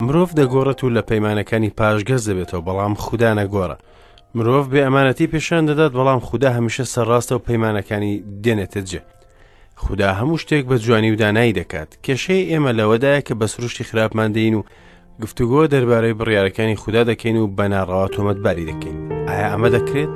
مرۆڤ دەگۆڕێت و لە پەیمانەکانی پاشگەز دەبێتەوە، بەڵام خودا نەگۆڕە. مرۆڤ بێ ئەمانەتی پێشان دەدات، بەڵام خودا هەمیشە سەرڕاستە و پەیمانەکانی دێنێتە جێ. خودا هەموو شتێک بە جوانی و دانایی دەکات. کێشەی ئێمە لەوەدایە کە بە سروشتی خراپمان دێین و گفتوگۆ دەربارەی بڕیارەکانی خودا دەکەین و بە ناڕەوا تۆمەتباری دەکەین. ئایا ئەمە دەکرێت؟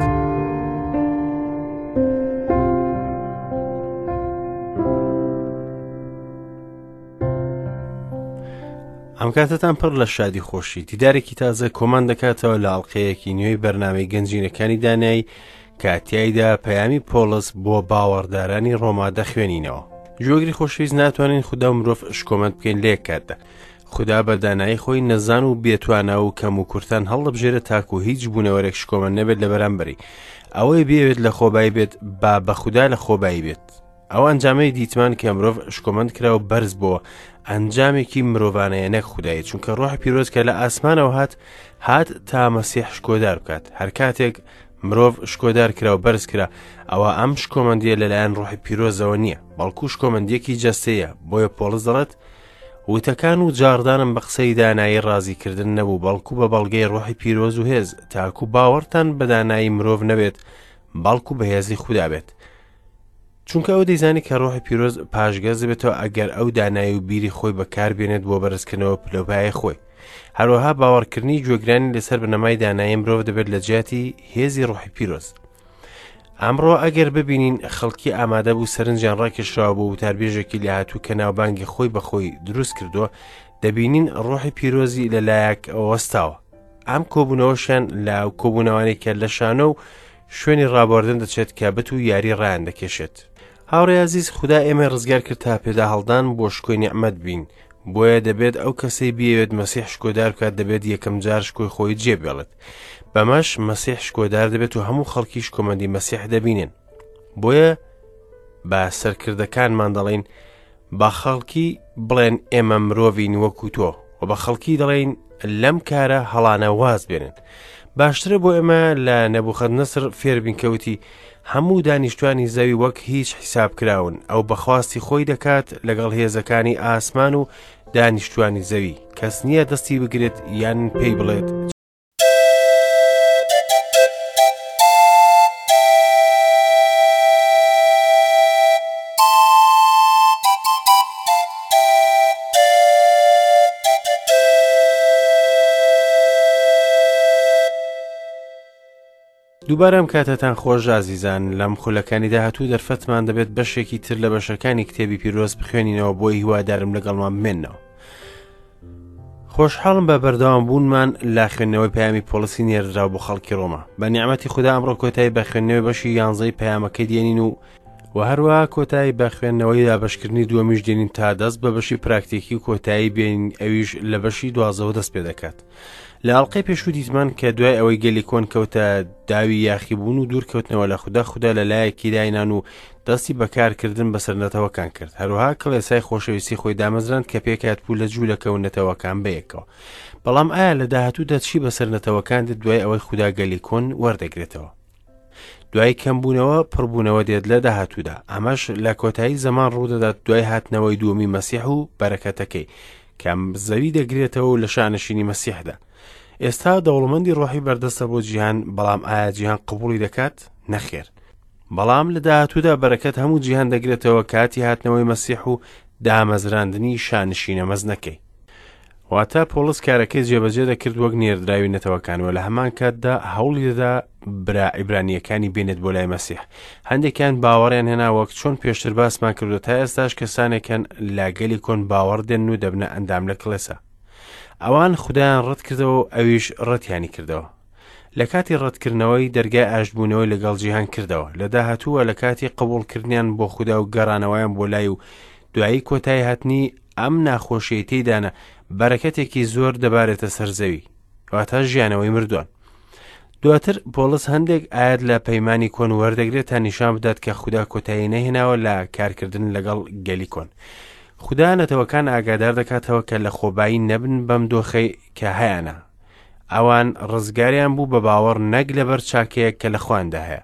ئەم کاتەتان پڕ لە شادی خۆشی دیدارێکی تازە کۆمان دەکاتەوە لە ئەڵلقەیەکی نوێی بەرنامەی گەنجینەکانی دانایی کە تیایدا پەیامی پۆڵس بۆ باوەڕدارانی ڕۆما دەخوێنینەوە جۆگری خۆشەویست ناتوانین خودا و مرۆڤ شکۆمەند بکەین لە یەک کاتدا خودا بە دانایی خۆی نەزان و بێتوانا و کەم و کورتان هەڵدەبژێرێت تاکو هیچ بوونەوەرێک شکۆمەند نەبێت لە بەرامبەری ئەوەی بێوێت لە خۆبایی بێت با بە خودا لە خۆبایی بێت ئەو ئەنجامەی دیتمان کە مرۆڤ شکۆمەند کرا و بەرز بۆوە ئەنجامێکی مرۆڤانەیە نەک خودایی چونکە ڕۆحی پیرۆز کە لە ئاسمانەوە هات هات تا مەسیح شکۆدار بکات هەر کاتێک مرۆڤ شکۆدار کرا و بەرز کرا ئەوە ئەم شکۆمەندیە لەلایەن ڕۆحی پیرۆزەوە نییە بەڵکو شکۆمەندیەکی جەستەیە بۆیە پۆڵس دەڵێت وتەکان و جاڕدانم بە قسەی دانایی ڕازیکردن نەبوو بەڵکو بە بەڵگەی ڕۆحی پیرۆز و هێز تاکو باوەڕتان بە دانایی مرۆڤ نەبێت بەڵکو بەهێزی خودا بێت چونکە ئەو دەیزانی کە ڕۆحی پیرۆز پاشگەز دەبێتەوە ئەگەر ئەو دانایی و بیری خۆی بەکاربێنێت بۆ بەرزکردنەوە پلەوپایەی خۆی. هەروەها باوەڕکردنی گوێگرانی لەسەر بنەمای دانایی مرۆڤ دەبێت لە جیاتی هێزی ڕۆحی پیرۆز. ئەمڕۆ ئەگەر ببینین خەڵکی ئامادە بوو سەرنجیان ڕاکێشراوە بۆ وتاربێژێکی لێهاتوو کە ناوبانگی خۆی بەخۆی دروست کردووە دەبینین ڕۆحی پیرۆزی لەلایەک وەستاوە ئەم کۆبوونەوەشیان لە کۆبوونەوانەی کە لە شانۆ و شوێنی ڕابواردن دەچێت کە بت و یاری ڕایان دەکێشێت. هاوڕێ ئازیز خودا ئێمەی ڕزگار کرد تا پێدا هەڵدان بۆ شکۆی نیعمەت بین بۆیە دەبێت ئەو کەسەی بیەوێت مەسیح شکۆدار بکات دەبێت یەکەم جار شکۆی خۆی جێبێڵێت بەمەش مەسیح شکۆدار دەبێت و هەموو خەڵکی شکۆمەندی مەسیح دەبینن بۆیە بە سەرکردەکانمان دەڵێین بە خەڵکی بڵێن ئێمە مرۆڤین وەکو تۆ و بە خەڵکی دەڵێین لەم کارە هەڵانە واز بێنن باشترە بۆ ئێمە لە نەبوخەت نەسر فێربین کەوتی هەموو دانیشتوانی زەوی وەک هیچ حیساب کراون ئەو بەخواستی خۆی دەکات لەگەڵ هێزەکانی ئاسمان و دانیشتوانی زەوی کەس نییە دەستی بگرێت یان پێی بڵێت دووبارە ئەم کاتەتان خۆش ئازیزان لەم خولەکانی داهاتوو دەرفەتمان دەبێت بەشێکی تر لە بەشەکانی کتێبی پیرۆز بخوێنینەوە بۆ هیوادارم لەگەڵمان بمێنەوە خۆشحاڵم بە بەردەوام بوونمان لە خوێندنەوەی پەیامی پۆڵسی نێردراو بۆ خەڵکی ڕۆما بە نیعمەتی خودا ئەمڕۆ کۆتایی بە خوێندنەوەی بەشی یانزەی پەیامەکەی دێنین و و هەروەها کۆتایی بە خوێندنەوەی دابەشکردنی دووەمیش دێنین تا دەست بە بەشی پراکتیکی و کۆتایی بێنین ئەویش لە بەشی دوازەوە دەست پێ دەکات لە ئەڵقەی پێشوو دیتمان کە دوای ئەوەی گەلی کۆن کەوتە داوی یاخیبوون و دوورکەوتنەوە لە خودا خودا لە لایەکی داینان و دەستی بەکارکردن بەسەر نەتەوەکان کرد هەروەها کڵێسای خۆشەویستی خۆی دامەزراند کە پێکهات بوو لە جوولەکە و نەتەوەکان بەیەکەوە بەڵام ئایا لە داهاتوودا چی بەسەر نەتەوەکان دێت دوای ئەوەی خودا گەلی کۆن وەردەگرێتەوە دوای کەمبوونەوە پڕبوونەوە دێت لە داهاتوودا ئەمەش لە کۆتایی زەمان ڕوودەدات دوای هاتنەوەی دووەمی مەسیح و بەرەکەتەکەی کە زەوی دەگرێتەوە و لە شانشینی مەسیحدا ئێستا دەوڵەمەندی ڕۆحی بەردەستە بۆ جیهان بەڵام ئایا جیهان قبوڵی دەکات نەخێر بەڵام لە داهاتوودا بەرەکەت هەموو جیهان دەگرێتەوە کاتی هاتنەوەی مەسیح و دامەزراندنی شانشینە مەزنەکەی واتە پۆڵس کارەکەی جێبەجێ دەکرد وەک نێردراوی نەتەوەکان و لە هەمان کاتدا هەوڵی دەدا برا عیبرانییەکانی بێنێت بۆ لای مەسیح هەندێکیان باوەڕیان هێنا وەک چۆن پێشتر باسمان کردو تا ئێستاش کەسانێکن لە گەلی کۆن باوەڕ دێن و دەبنە ئەندام لە کڵێسا ئەوان خودایان ڕەت کردەوە و ئەویش ڕەتیانی کردەوە لە کاتی ڕەتکردنەوەی دەرگای ئاشتبوونەوەی لەگەڵ جیهان کردەوە لە داهاتووە لە کاتی قبوڵکردنیان بۆ خودا و گەڕانەوەیان بۆ لای و دوایی کۆتایی هاتنی ئەم ناخۆشیەی تێیدانە بەرەکەتێکی زۆر دەبارێتە سەر زەوی واتە ژیانەوەی مردووان دواتر پۆڵس هەندێک ئاەت لە پەیمانی کۆن وەردەگرێت تا نیشان بدات کە خودا کۆتایی نەهێناوە لە کارکردن لەگەڵ گەلی کۆن خودا نەتەوەکان ئاگادار دەکاتەوە کە لە خۆبایی نەبن بەم دۆخەی کە هەیانە ئەوان ڕزگاریان بوو بە باوەڕ نەک لەبەر چاکەیەک کە لە خۆیاندا هەیە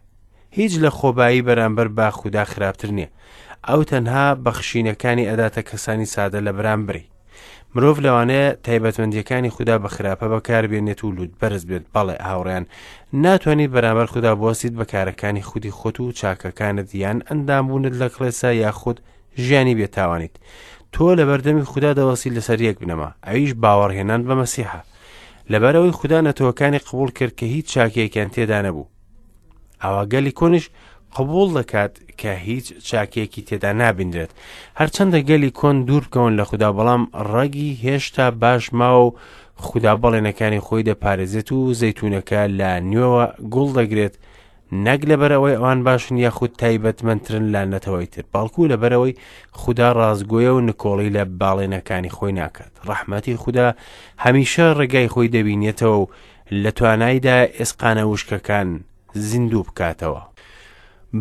هیچ لە خۆبایی بەرامبەر بە خودا خراپتر نییە. ئەو تەنها بەخشینەکانی ئەداتە کەسانی سادە لە بەرامبەری. مرۆڤ لەوانەیە تایبەتمەندییەکانی خودا بە خراپە بەکاربێنێت و لووتبەرز بێت. بەڵێ هاوڕێیان، ناتوانیت بەرامبەر خودا بوەستیت بە کارەکانی خودی خۆت و چاکەکانت یان ئەندامبوونت لە کڵێسا یاخود ژیانی بێتاوانیت. تۆ لەبەردەمی خودا دەوەستیت لەسەر یەک بنەما، ئەویش باوەڕهێنان بە مەسیحە. لەبەرئەوەی خودا نەتەوەکانی قبوڵ کرد کە هیچ چاکەیەکیان تێدا نەبوو. ئەوا گەلی کۆنیش قبوڵ دەکات کە هیچ چاکەیەکی تێدا نابینرێت. هەرچەندە گەلی کۆن دوور بکەون لە خودا بەڵام ڕەگی هێشتا باش ماوە و خودا بەڵێنەکانی خۆی دەپارێزێت و زەیتونەکە لە نوێوە گوڵ دەگرێت نەک لەبەرئەوەی ئەوان باشن یاخود تایبەتمەندترن لە نەتەوەی تر بەڵکو لەبەرئەوەی خودا ڕاستگۆیە و نکۆڵی لە باڵێنەکانی خۆی ناکات ڕەحمەتی خودا هەمیشە ڕێگای خۆی دەبینێتەوە و لە توانایدا ئێسقانە وشکەکان زیندوو بکاتەوە.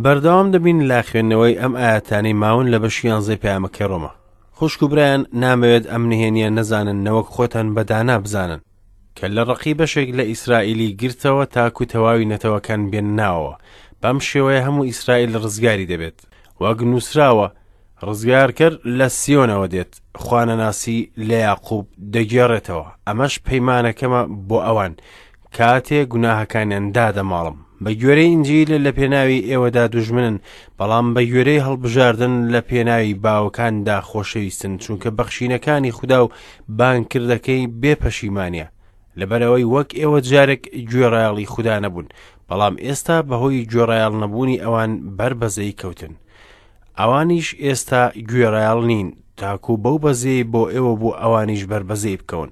بەردەوام دەبین لە خوێندنەوەی ئەم ئایەتانەی ماون لە بەشی یانزەی پەیامەکەی ڕۆما. خوشک و برایان نامەوێت ئەم نهێنیە نەزانن نەوەک خۆتان بە دانا بزانن. کە لە ڕقی بەشێک لە ئیسرائیلی گرتەوە تاکو تەواوی نەتەوەکان بێنە ناوەوە. بەم شێوەیە هەموو ئیسرائیل ڕزگاری دەبێت. وەک نووسراوە، ڕزگارکەر لە سیۆنەوە دێت، خوانەناسی لە یاقوب دەگێڕێتەوە. ئەمەش پەیمانەکەمە بۆ ئەوان، کاتێ گوناهەکانیان دادەماڵم. بە گوێرەی ئینجیل لە پێناوی ئێوەدا دوژمنن، بەڵام بە گوێرەی هەڵبژاردن لە پێناوی باوەکاندا خۆشەویستن، چونکە بەخشینەکانی خودا و بانگکردەکەی بێ پەشیمانییە. لەبەرئەوەی وەک ئێوە جارێک گوێڕایەڵی خودا نەبوون، بەڵام ئێستا بەهۆی گوێڕایەڵ نەبوونی ئەوان بەر بەزەیی کەوتن. ئەوانیش ئێستا گوێڕایەڵ نین، تاکو بەو بەزەیەی بۆ ئێوە بوو ئەوانیش بەر بەزەیی بکەون.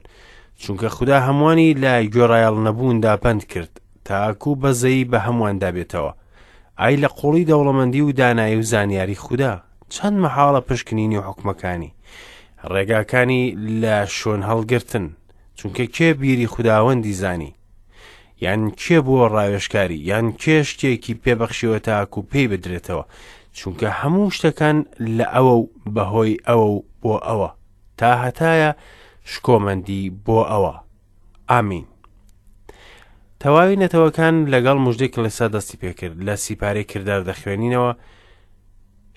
چونکە خودا هەمووانی لە گوێڕایەڵ نەبووندا بەند کرد، تاکو بەزەیی بە هەموواندا بێتەوە. ئای لە قوڵی دەوڵەمەندی و دانایی و زانیاری خودا! چەند مەحاڵە پشکنینی حوکمەکانی، ڕێگاکانی لە شۆن هەڵگرتن، چونکە کێ بیری خوداوەندی زانی؟ یان کێ بووە ڕاوێژکاری یان کێ شتێکی پێبەخشیوە تاکو پێی بدرێتەوە چونکە هەموو شتەکان لە ئەوە و بەهۆی ئەوە و بۆ ئەوە تا هەتایە شکۆمەندی بۆ ئەوە ئامین تەواوی نەتەوەکان لەگەڵ مژدەی کڵێسا دەستی پێکرد لە سیپارەی کردار دەخوێنینەوە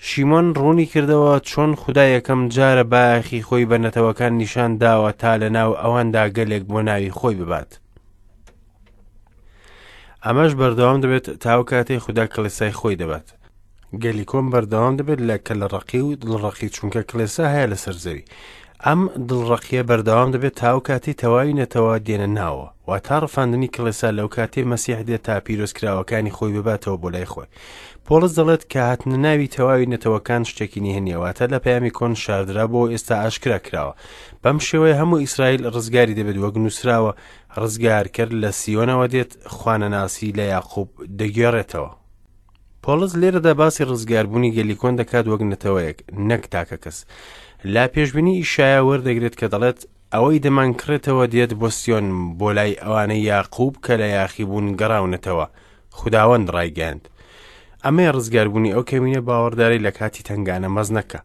شیمۆن ڕوونی کردەوە چۆن خودا یەکەم جارە بایەخی خۆی بە نەتەوەکان نیشان داوە تا لە ناو ئەواندا گەلێک بۆ ناوی خۆی ببات. ئەمەش بەردەوام دەبێت تاو کاتێک خودا کڵێسای خۆی دەبات. گەلی کۆن بەردەوام دەبێت لە کەلەڕەقی و دڵڕەقی چونکە کڵێسا هەیە لەسەر زەوی. ئەم دڵڕەقیە بەردەوام دەبێت تاو کاتی تەواوی نەتەوە دێنە ناوە واتا ڕفاندنی کڵێسا لەو کاتەی مەسیح دێت تا پیرۆزکراوەکانی خۆی بباتەوە بۆ لای خۆی. پۆڵس دەڵێت کە هاتنە ناوی تەواوی نەتەوەکان شتێکی نهێنیە واتە لە پەیامی کۆن شاردرا بۆ ئێستا ئاشکرا کراوە بەم شێوەیە هەموو ئیسرائیل ڕزگاری دەبێت وەک نووسراوە ڕزگارکەر لە سیۆنەوە دێت خوانەناسی لە یاقوب دەگێڕێتەوە پۆڵس لێرەدا باسی ڕزگاربوونی گەلی کۆن دەکات وەک نەتەوەیەک نەک تاکە کەس لا پێشبینی ئیشایا وەردەگرێت کە دەڵێت ئەوەی دەمانکڕێتەوە دێت بۆ سیۆن بۆ لای ئەوانەی یاقوب کە لە یاخیبوون گەڕاونەتەوە خوداوەند ڕایگەیاند. ئەمەیە ڕزگاربوونی ئەو کەمینە باوەڕدارەی لە کاتی تەنگانە مەزنەکە.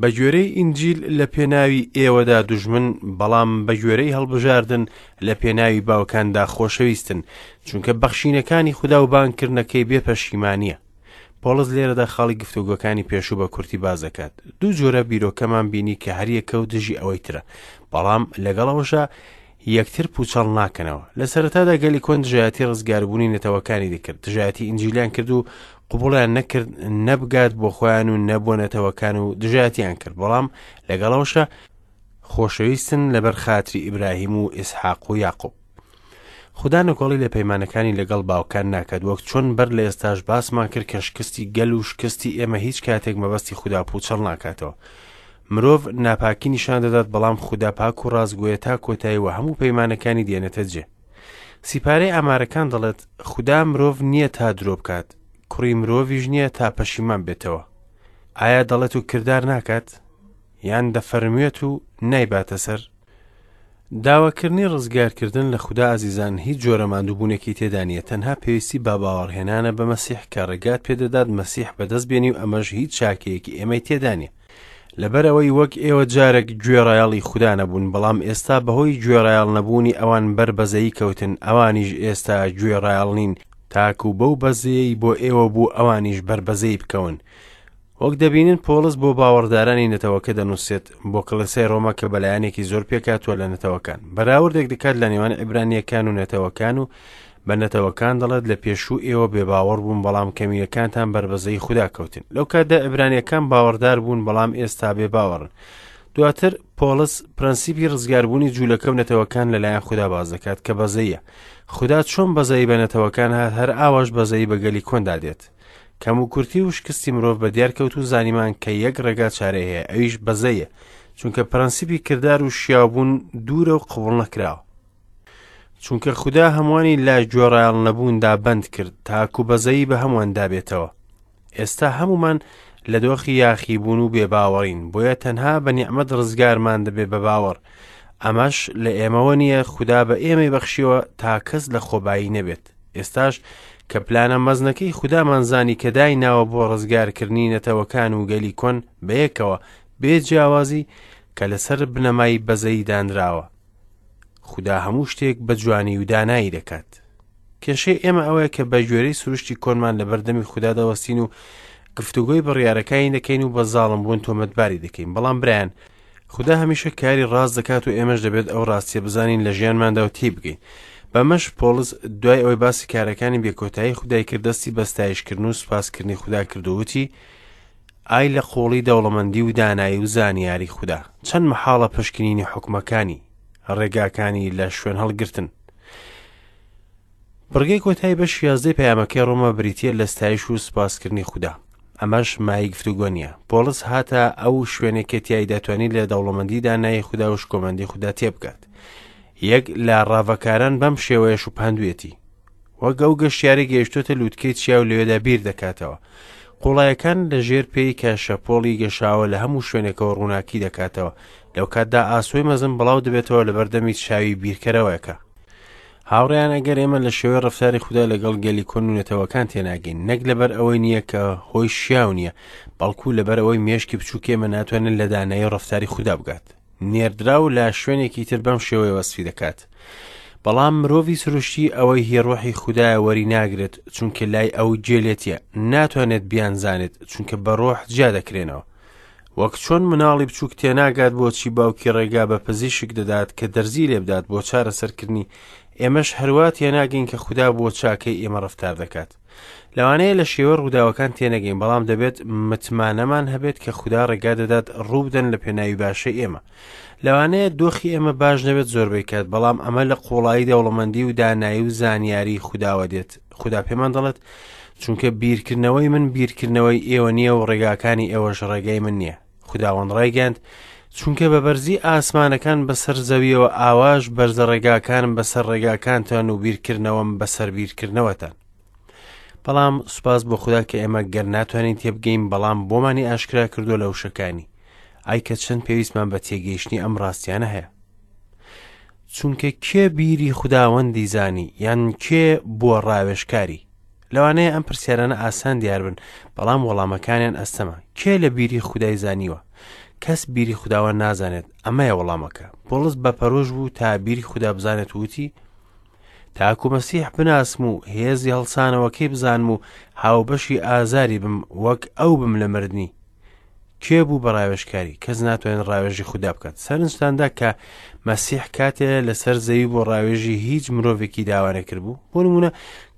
بە گوێرەی ئینجیل لە پێناوی ئێوەدا دوژمن بەڵام بە گوێرەی هەڵبژاردن لە پێناوی باوکاندا خۆشەویستن چونکە بەخشینەکانی خودا و بانگکردنەکەی بێ پەشیمانیە پۆڵس لێرەدا خاڵی گفتوگۆکانی پێشوو بە کورتی باس دەکات دوو جۆرە بیرۆکەمان بینی کە هەریەکە و دژی ئەوەی ترە بەڵام لەگەڵ ئەوەشا یەکتر پوچەڵ ناکەنەوە. لە سەرەتادا گەلی کۆن دژایەتی ڕزگاربوونی نەتەوەکانی دەکرد، دژایەتی ئینجیلیان کرد و قبوڵیان نەکرد نەبگات بۆ خۆیان و نە بۆ نەتەوەکان و دژایەتیان کرد، بەڵام لەگەڵەوەشا خۆشەویستن لەبەر خاتری ئیبراهیم و ئیسحاق و یاقوب. خودا نکۆڵی لە پەیمانەکانی لەگەڵ باوکان ناکات وەک چۆن بەر لە ئێستاش باسمان کرد کە شکستی گەل و شکستی ئێمە هیچ کاتێک مەبەستی خودا پوچەڵ ناکاتەوە. مرۆڤ ناپاکی نیشان دەدات بەڵام خودا پاک و ڕاستگۆیە تا کۆتایی و هەموو پەیمانەکانی دێنێتە جێ. سیپارەی ئامارەکان دەڵێت خودا مرۆڤ نییە تا درۆ بکات، کوڕی مرۆڤیش نییە تا پەشیمان بێتەوە. ئایا دەڵێت و کردار ناکات؟ یان دەفەرموێت و نایباتە سەر؟ داواکردنی ڕزگارکردن لە خودا ئازیزان هیچ جۆرە ماندووبوونێکی تێدا نییە تەنها پێویستی بە باوەڕهێنانە بە مەسیح کە ڕێگات پێدەدات مەسیح بەدەست بێنی و ئەمەش هیچ چاکەیەکی ئێمەی تێدا نییە لەبەرئەوەی وەک ئێوە جارێک گوێڕایەڵی خودا نەبوون بەڵام ئێستا بەهۆی گوێڕایەڵ نەبوونی ئەوان بەر بەزەیی کەوتن ئەوانیش ئێستا گوێڕایەڵ نین تاکو بەو بەزەیەی بۆ ئێوە بوو ئەوانیش بەر بەزەیی بکەون. وەک دەبینن پۆڵس بۆ باوەڕدارانی نەتەوەکە دەنووسێت، بۆ کڵێسای ڕۆما کە بەلایەنێکی زۆر پێکهاتووە لە نەتەوەکان. بەراوردێک دەکات لە نێوان عیبرانییەکان و نەتەوەکان و بە نەتەوەکان دەڵێت لە پێشوو ئێوە بێباوەڕ بوون بەڵام کەمینەکانتان بەربەزەی خودا کەوتن. لەو کاتدا عیبرانییەکان باوەڕدار بوون بەڵام ئێستا بێباوەڕن. دواتر پۆڵس پرەنسیپی ڕزگاربوونی جوولەکە و نەتەوەکان لەلایەن خودا باس دەکات کە بەزەیە. خودا چۆن بەزەیی بە نەتەوەکان هات هەر ئاواش بەزەیی بە گەلی کۆندا دێت. کەموکورتی و شکستی مرۆڤ بە دیار کەوت و زانیمان کە یەک ڕێگا چارەی هەیە ئەویش بەزەیە چونکە پرەنسیپی کردار و شیاوبوون دوورە و قبوڵ نەکراوە چونکە خودا هەمووانی لە گوێڕایەڵ نەبووندا بەند کرد تاکو بەزەیی بە هەموواندا بێتەوە ئێستا هەمومان لە دۆخی یاخیبوون و بێباوەڕین بۆیە تەنها بە نیعمەت ڕزگارمان دەبێ بە باوەڕ ئەمەش لە ئێمەوە نییە خودا بە ئێمەی بەخشیوە تا کەس لە خۆبایی نەبێت ئێستاش کە پلانە مەزنەکەی خودامان زانی کە دایناوە بۆ ڕزگارکردنی نەتەوەکان و گەلی کۆن بەیەکەوە بێ جیاوازی کە لەسەر بنەمای بەزەیی دانراوە خودا هەموو شتێک بە جوانی و دانایی دەکات کێشەی ئێمە ئەوەیە کە بە گوێرەی سروشتی کۆنمان لە بەردەمی خودا دەوەستین و گفتوگۆی بڕیارەکانی دەکەین و بە زاڵم بوون تۆمەتباری دەکەین بەڵام برایان خودا هەمیشە کاری ڕاست دەکات و ئێمەش دەبێت ئەو ڕاستیە بزانین لە ژیانماندا و تێبگەین. بەمەش پۆڵس دوای ئەوەی باسی کارەکانی بێکۆتایی خودای کرد دەستی بە ستایشکردن و سوپاسکردنی خودا کرد و وتی ئای لە قوڵی دەوڵەمەندی و دانایی و زانیاری خودا چەند مەحاڵە پشکنینی حوکمەکانی ڕێگاکانی لە شوێن هەڵگرتن بڕگەی کۆتایی بەشی یازدەی پەیامەکەی ڕۆما بریتییە لە ستایش و سوپاسکردنی خودا. ئەمەش مایەی گفتوگۆ نییە. پۆڵس هاتە ئەو شوێنەی کە تیایدا توانی لە دەوڵەمەندی دانایی خودا و شکۆمەندی خودا تێبگات. یەک لە ڕاڤەکاران بەم شێوەیە شوبهاندوویەتی. وەک ئەو گەشتیارەی گەیشتۆتە لووتکەی چیا و لەوێدا بیر دەکاتەوە. قوڵایەکان لە ژێر پێی کە شەپۆڵی گەشاوە لە هەموو شوێنێکەوە ڕووناکی دەکاتەوە. لەو کاتدا ئاسۆی مەزن بڵاو دەبێتەوە لەبەردەمی چاوی بیرکەرەوەکە. هاوڕێیان ئەگەر ئێمە لە شێوەی ڕەفتاری خودا لەگەڵ گەلی کۆن و نەتەوەکان تێناگەین نەک لەبەر ئەوەی نییە کە هۆی شیاو نییە بەڵکو لەبەر ئەوەی مێشکی بچووک ئێمە ناتوانێت لە دانایی ڕەفتاری خودا بگات نێردراو لە شوێنێکی تر بەم شێوەیە وەسفی دەکات بەڵام مرۆڤی سروشتی ئەوەی هی ڕۆحی خودایە وەری ناگرێت چونکە لای ئەو گێلێتیە ناتوانێت بیانزانێت چونکە بە ڕۆح جیا دەکرێنەوە وەک چۆن مناڵی بچووک تێناگات بۆچی باوکی ڕێگا بە پزیشک دەدات کە دەرزی لێبدات بۆ چارەسەرکردنی، ئێمەش هەروا تێناگەین کە خودا بۆ چاکەی ئێمە ڕەفتار دەکات. لەوانەیە لە شێوەی ڕووداوەکان تێنەگەین، بەڵام دەبێت متمانەمان هەبێت کە خودا ڕێگا دەدات ڕووبدەن لە پێناوی باشەی ئێمە. لەوانەیە دۆخی ئێمە باش نەبێت زۆربەی کات، بەڵام ئەمە لە قوڵایی دەوڵەمەندی و دانایی و زانیاری خوداوە دێت. خودا پێمان دەڵێت، چونکە بیرکردنەوەی من بیرکردنەوەی ئێوە نییە و ڕێگاکانی ئێوەش ڕێگای من نییە. خوداوەند ڕایگەیاند، چونکە بە بەرزی ئاسمانەکان بەسەر زەویەوە ئاواش بەرزە ڕێگاکانم بەسەر ڕێگاکانتان و بیرکردنەوەم بەسەر بیرکردنەوەتان. بەڵام سوپاس بۆ خودا کە ئێمە گەر ناتوانین تێبگەین بەڵام بۆمانی ئاشکرا کردووە لە وشەکانی. ئای کە چەند پێویستمان بە تێگەیشتنی ئەم ڕاستیانە هەیە. چونکە کێ بیری خوداوەندی زانی یان کێ بووە ڕاوێژکاری؟ لەوانەیە ئەم پرسیارانە ئاسان دیار بن، بەڵام وەڵامەکانیان ئەستەمە. کێ لە بیری خودای زانیوە؟ کەس بیری خوداوەند نازانێت، ئەمەیە وەڵامەکە. پۆڵس بە پەرۆش بوو تا بیری خودا بزانێت و وتی، تاکو مەسیح بناسم و هێزی هەڵسانەوەکەی بزانم و هاوبەشی ئازاری بم وەک ئەو بم لە مردنی. کێ بوو بە ڕاوێژکاری؟ کەس ناتوانێت ڕاوێژی خودا بکات. سەرنجتاندا کە مەسیح کاتێ لەسەر زەوی بۆ ڕاوێژی هیچ مرۆڤێکی داوا نەکردبوو؟ بۆ نمونە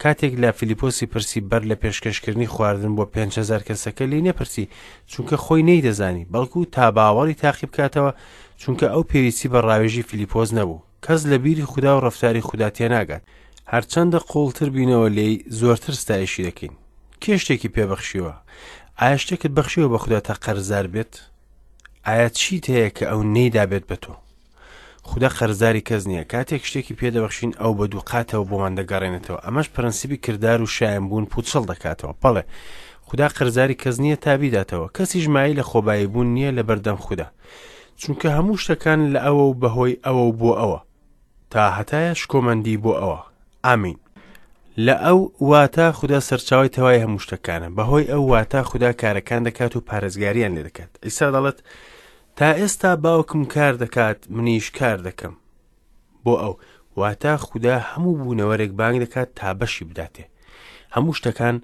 کاتێک لە فیلیپۆسی پرسی بەر لە پێشکەشکردنی خواردن بۆ 5هزار کەسەکە لێی نەپرسی چونکە خۆی نەیدەزانی بەڵکو تا باوەڕی تاقی بکاتەوە چونکە ئەو پێویستی بە ڕاوێژی فیلیپۆس نەبوو. کەس لە بیری خودا و ڕەفتاری خودا تێناگات. هەرچەندە قووڵتر بینەوە لێی زۆرتر ستایشی دەکەین. کێ شتێکی پێ بەخشیوە؟ ئایا شتێکت بەخشیوە بە خودا تا قەرزار بێت؟ ئایا چیت هەیە کە ئەو نەیدابێت بە تۆ؟ خودا قەرزاری کەس نییە. کاتێک شتێکی پێ دەبەخشین ئەو بە دووقاتەوە بۆمان دەگەڕێنێتەوە. ئەمەش پرەنسیپی کردار و شایەنبوون پووچەڵ دەکاتەوە. بەڵێ، خودا قەرزاری کەس نییە تا بیداتەوە. کەسیش مایەی لەخۆباییبوون نییە لەبەردەم خودا. چونکە هەموو شتەکان لە ئەوە و بەهۆی ئەوە و بۆ ئەوە. تا هەتایە شکۆمەندی بۆ ئەوە. ئامین. لە ئەو واتە خودا سەرچاوەی تەوای هەموو شتەکانە. بەهۆی ئەو واتە خودا کارەکان دەکات و پارێزگاریان لێ دەکات. عیسا دەڵێت، تا ئێستا باوکم کار دەکات، منیش کار دەکەم. بۆ ئەو واتە خودا هەموو بوونەوەرێک بانگ دەکات تا بەشی بداتێ. هەموو شتەکان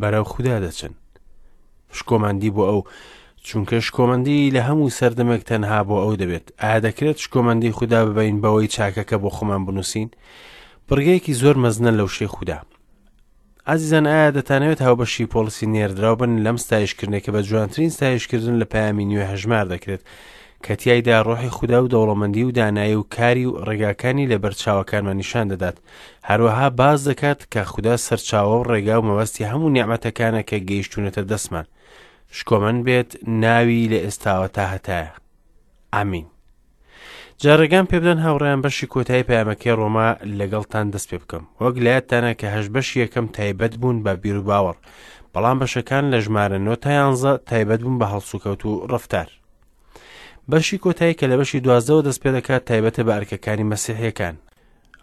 بەرەو خودا دەچن. شکۆمەندی بۆ ئەو، چونکە شکۆمەندی لە هەموو سەردەمێک تەنها بۆ ئەو دەبێت. ئایا دەکرێت شکۆمەندی خودا ببەین بەوەی چاکەکە بۆ خۆمان بنووسین؟ بڕگەیەکی زۆر مەزنە لە وشەی خودا. ئازیزان ئایا دەتانەوێت هاوبەشی پۆڵسی نێردراو بن لەم ستایشکردنەی کە بە جوانترین ستایشکردن لە پەیامی نوێ هەژمار دەکرێت کە تیایدا ڕۆحی خودا و دەوڵەمەندی و دانایی و کاری و ڕێگاکانی لە بەرچاوەکانمان نیشان دەدات هەروەها باس دەکات کە خودا سەرچاوە و ڕێگا و مەبەستی هەموو نیعمەتەکانە کە گەیشتوونەتە دەستمان شکۆمەند بێت ناوی لە ئێستاوە تا هەتایە ئامین جا ڕێگام پێبدەن هاوڕێیان بەشی کۆتایی پەیامەکەی ڕۆما لەگەڵتان دەست پێ بکەم وەک لایەتانە کە هەش بەشی یەکەم تایبەت بوون بە بیروباوەڕ بەڵام بەشەکان لە ژمارە 9 تا 11 تایبەت بوون بە هەڵسوکەوت و ڕفتار بەشی کۆتایی کە لە بەشی دوازدەوە دەست پێ دەکات تایبەتە بە ئەرکەکانی مەسیحیەکان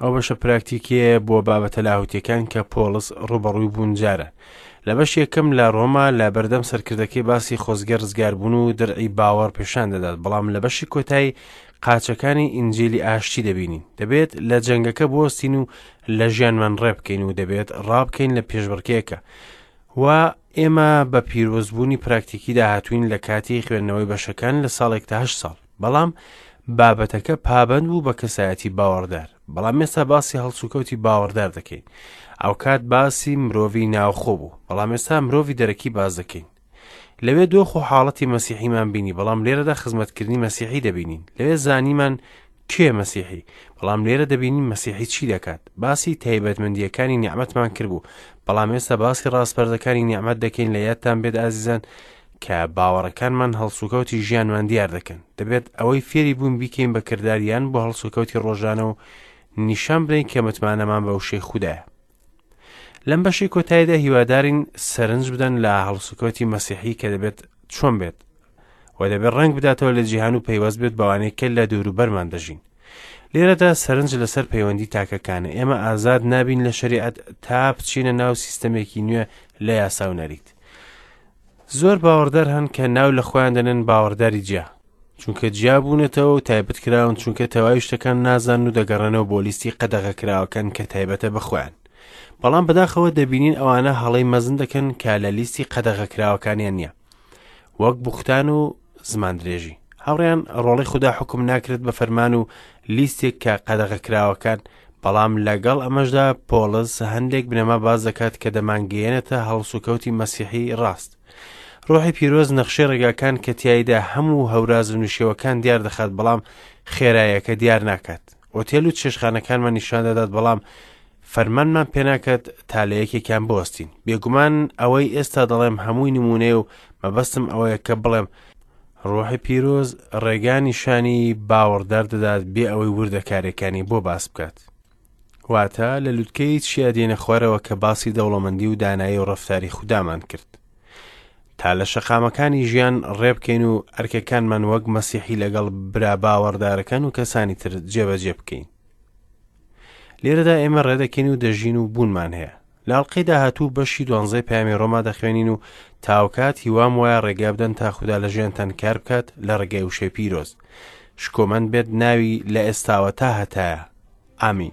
ئەو بەشە پراکتیکیەیە بۆ بابەتە لاهوتیەکان کە پۆڵس ڕووبەڕووی بوون جارە لە بەش یەکەم لە ڕۆما لە بەردەم سەرکردەکەی باسی خۆزگە ڕزگاربوون و درعی باوەڕ پێشان دەدات بەڵام لە بەشی کۆتایی قاچەکانی ئینجیلی ئاشتی دەبینین دەبێت لە جەنگەکە بوەستین و لە ژیانمان ڕێبکەین و دەبێت ڕابکەین لە پێشبڕکێکە و ئێمە بە پیرۆزبوونی پراکتیکی داهاتوین لە کاتی خوێندنەوەی بەشەکان لە ساڵێک تا هەشت ساڵ بەڵام بابەتەکە پابەند بوو بە کەسایەتی باوەڕدار بەڵام ئێستا باسی هەڵسوکەوتی باوەڕدار دەکەین ئەوکات باسی مرۆڤی ناوخۆ بوو بەڵام ئێستا مرۆڤی دەرەکی باز دەکەین لەوێ دۆخ و حاڵەتی مەسیحیمان بینی بەڵام لێرەدا خزمەتکردنی مەسیحی دەبینین لەوێ زانیمان کێ مەسیحی بەڵام لێرە دەبینین مەسیحی چی دەکات باسی تایبەتمەندیەکانی نیعمەتمان کردبوو بەڵام ئێستا باسی ڕاسپەردەکانی نیعمەت دەکەین لە یادتان بێت ئازیزان کە باوەڕەکانمان هەڵسوکەوتی ژیانمان دیار دەکەن دەبێت ئەوەی فێری بوون بیکەین بە کرداریان بۆ هەڵسوکەوتی ڕۆژانە و نیشان بدەین کە متمانەمان بە وشەی خودایە لەم بەشی کۆتاییدا هیوادارین سەرنج بدەن لە هەڵسوکەوتی مەسیحی کە دەبێت چۆن بێت و دەبێت ڕەنگ بداتەوە لە جیهان و پەیوەست بێت بەوانەی کە لە دووروبەرمان دەژین لێرەدا سەرنج لەسەر پەیوەندی تاکەکانە ئێمە ئازاد نابین لە شریعەت تا بچینە ناو سیستەمێکی نوێ لە یاسا و نەریت زۆر باوەڕدار هەن کە ناو لە خۆیان دەنێن باوەڕداری جیا چونکە جیا بوونەتەوە و تایبەت کراون چونکە تەواوی شتەکان نازانن و دەگەڕێنەوە بۆ لیستی قەدەغەکراوەکان کە تایبەتە بە خۆیان بەڵام بەداخەوە دەبینین ئەوانە هەڵەی مەزن دەکەن کە لە لیستی قەدەغەکراوەکانیان نییە وەک بوختان و زمان درێژی هاوڕیان ڕۆڵی خودا حکوم ناکرێت بە فەرمان و لیستێک کە قەدەغەکراوەکان بەڵام لەگەڵ ئەمەشدا پۆڵس هەندێک بنەما باس دەکات کە دەمانگەیەنێتە هەڵسوکەوتی مەسیحی ڕاست. ڕۆحی پیرۆز نەخشەی ڕێگاکان کە تیایدا هەموو هەوراز و نشێوەکان دیار دەخات بەڵام خێرایەکە دیار ناکات. ئۆتێل و چێشخانەکانمان نیشان دەدات بەڵام فەرمانمان پێناکات تا لە یەکێکیان بوەستین. بێگومان ئەوەی ئێستا دەڵێم هەمووی نمونەیە و مەبەستم ئەوەیە کە بڵێم ڕۆحی پیرۆز ڕێگا نیشانی باوەڕدار دەدات بێ ئەوەی وردەکاریەکانی بۆ باس بکات. واتە لە لوتکەی چیا دێنە خوارەوە کە باسی دەوڵەمەندی و دانایی و ڕەفتاری خودامان کرد. تا لە شەقامەکانی ژیان ڕێبکەین و ئەرکەکانمان وەک مەسیحی لەگەڵ برا باوەڕدارەکان و کەسانی تر جێبەجێ بکەین. لێرەدا ئێمە ڕێدەکەین و دەژین و بوونمان هەیە. لە ئەڵقەی داهاتوو بەشی دوانزەی پەیامی ڕۆما دەخوێنین و تاوکات هیوام وایە ڕێگا بدەن تا خودا لە ژیانتان کار بکات لە ڕێگای وشەی پیرۆز. شکۆمەند بێت ناوی لە ئێستاوە تا هەتایە. ئامین.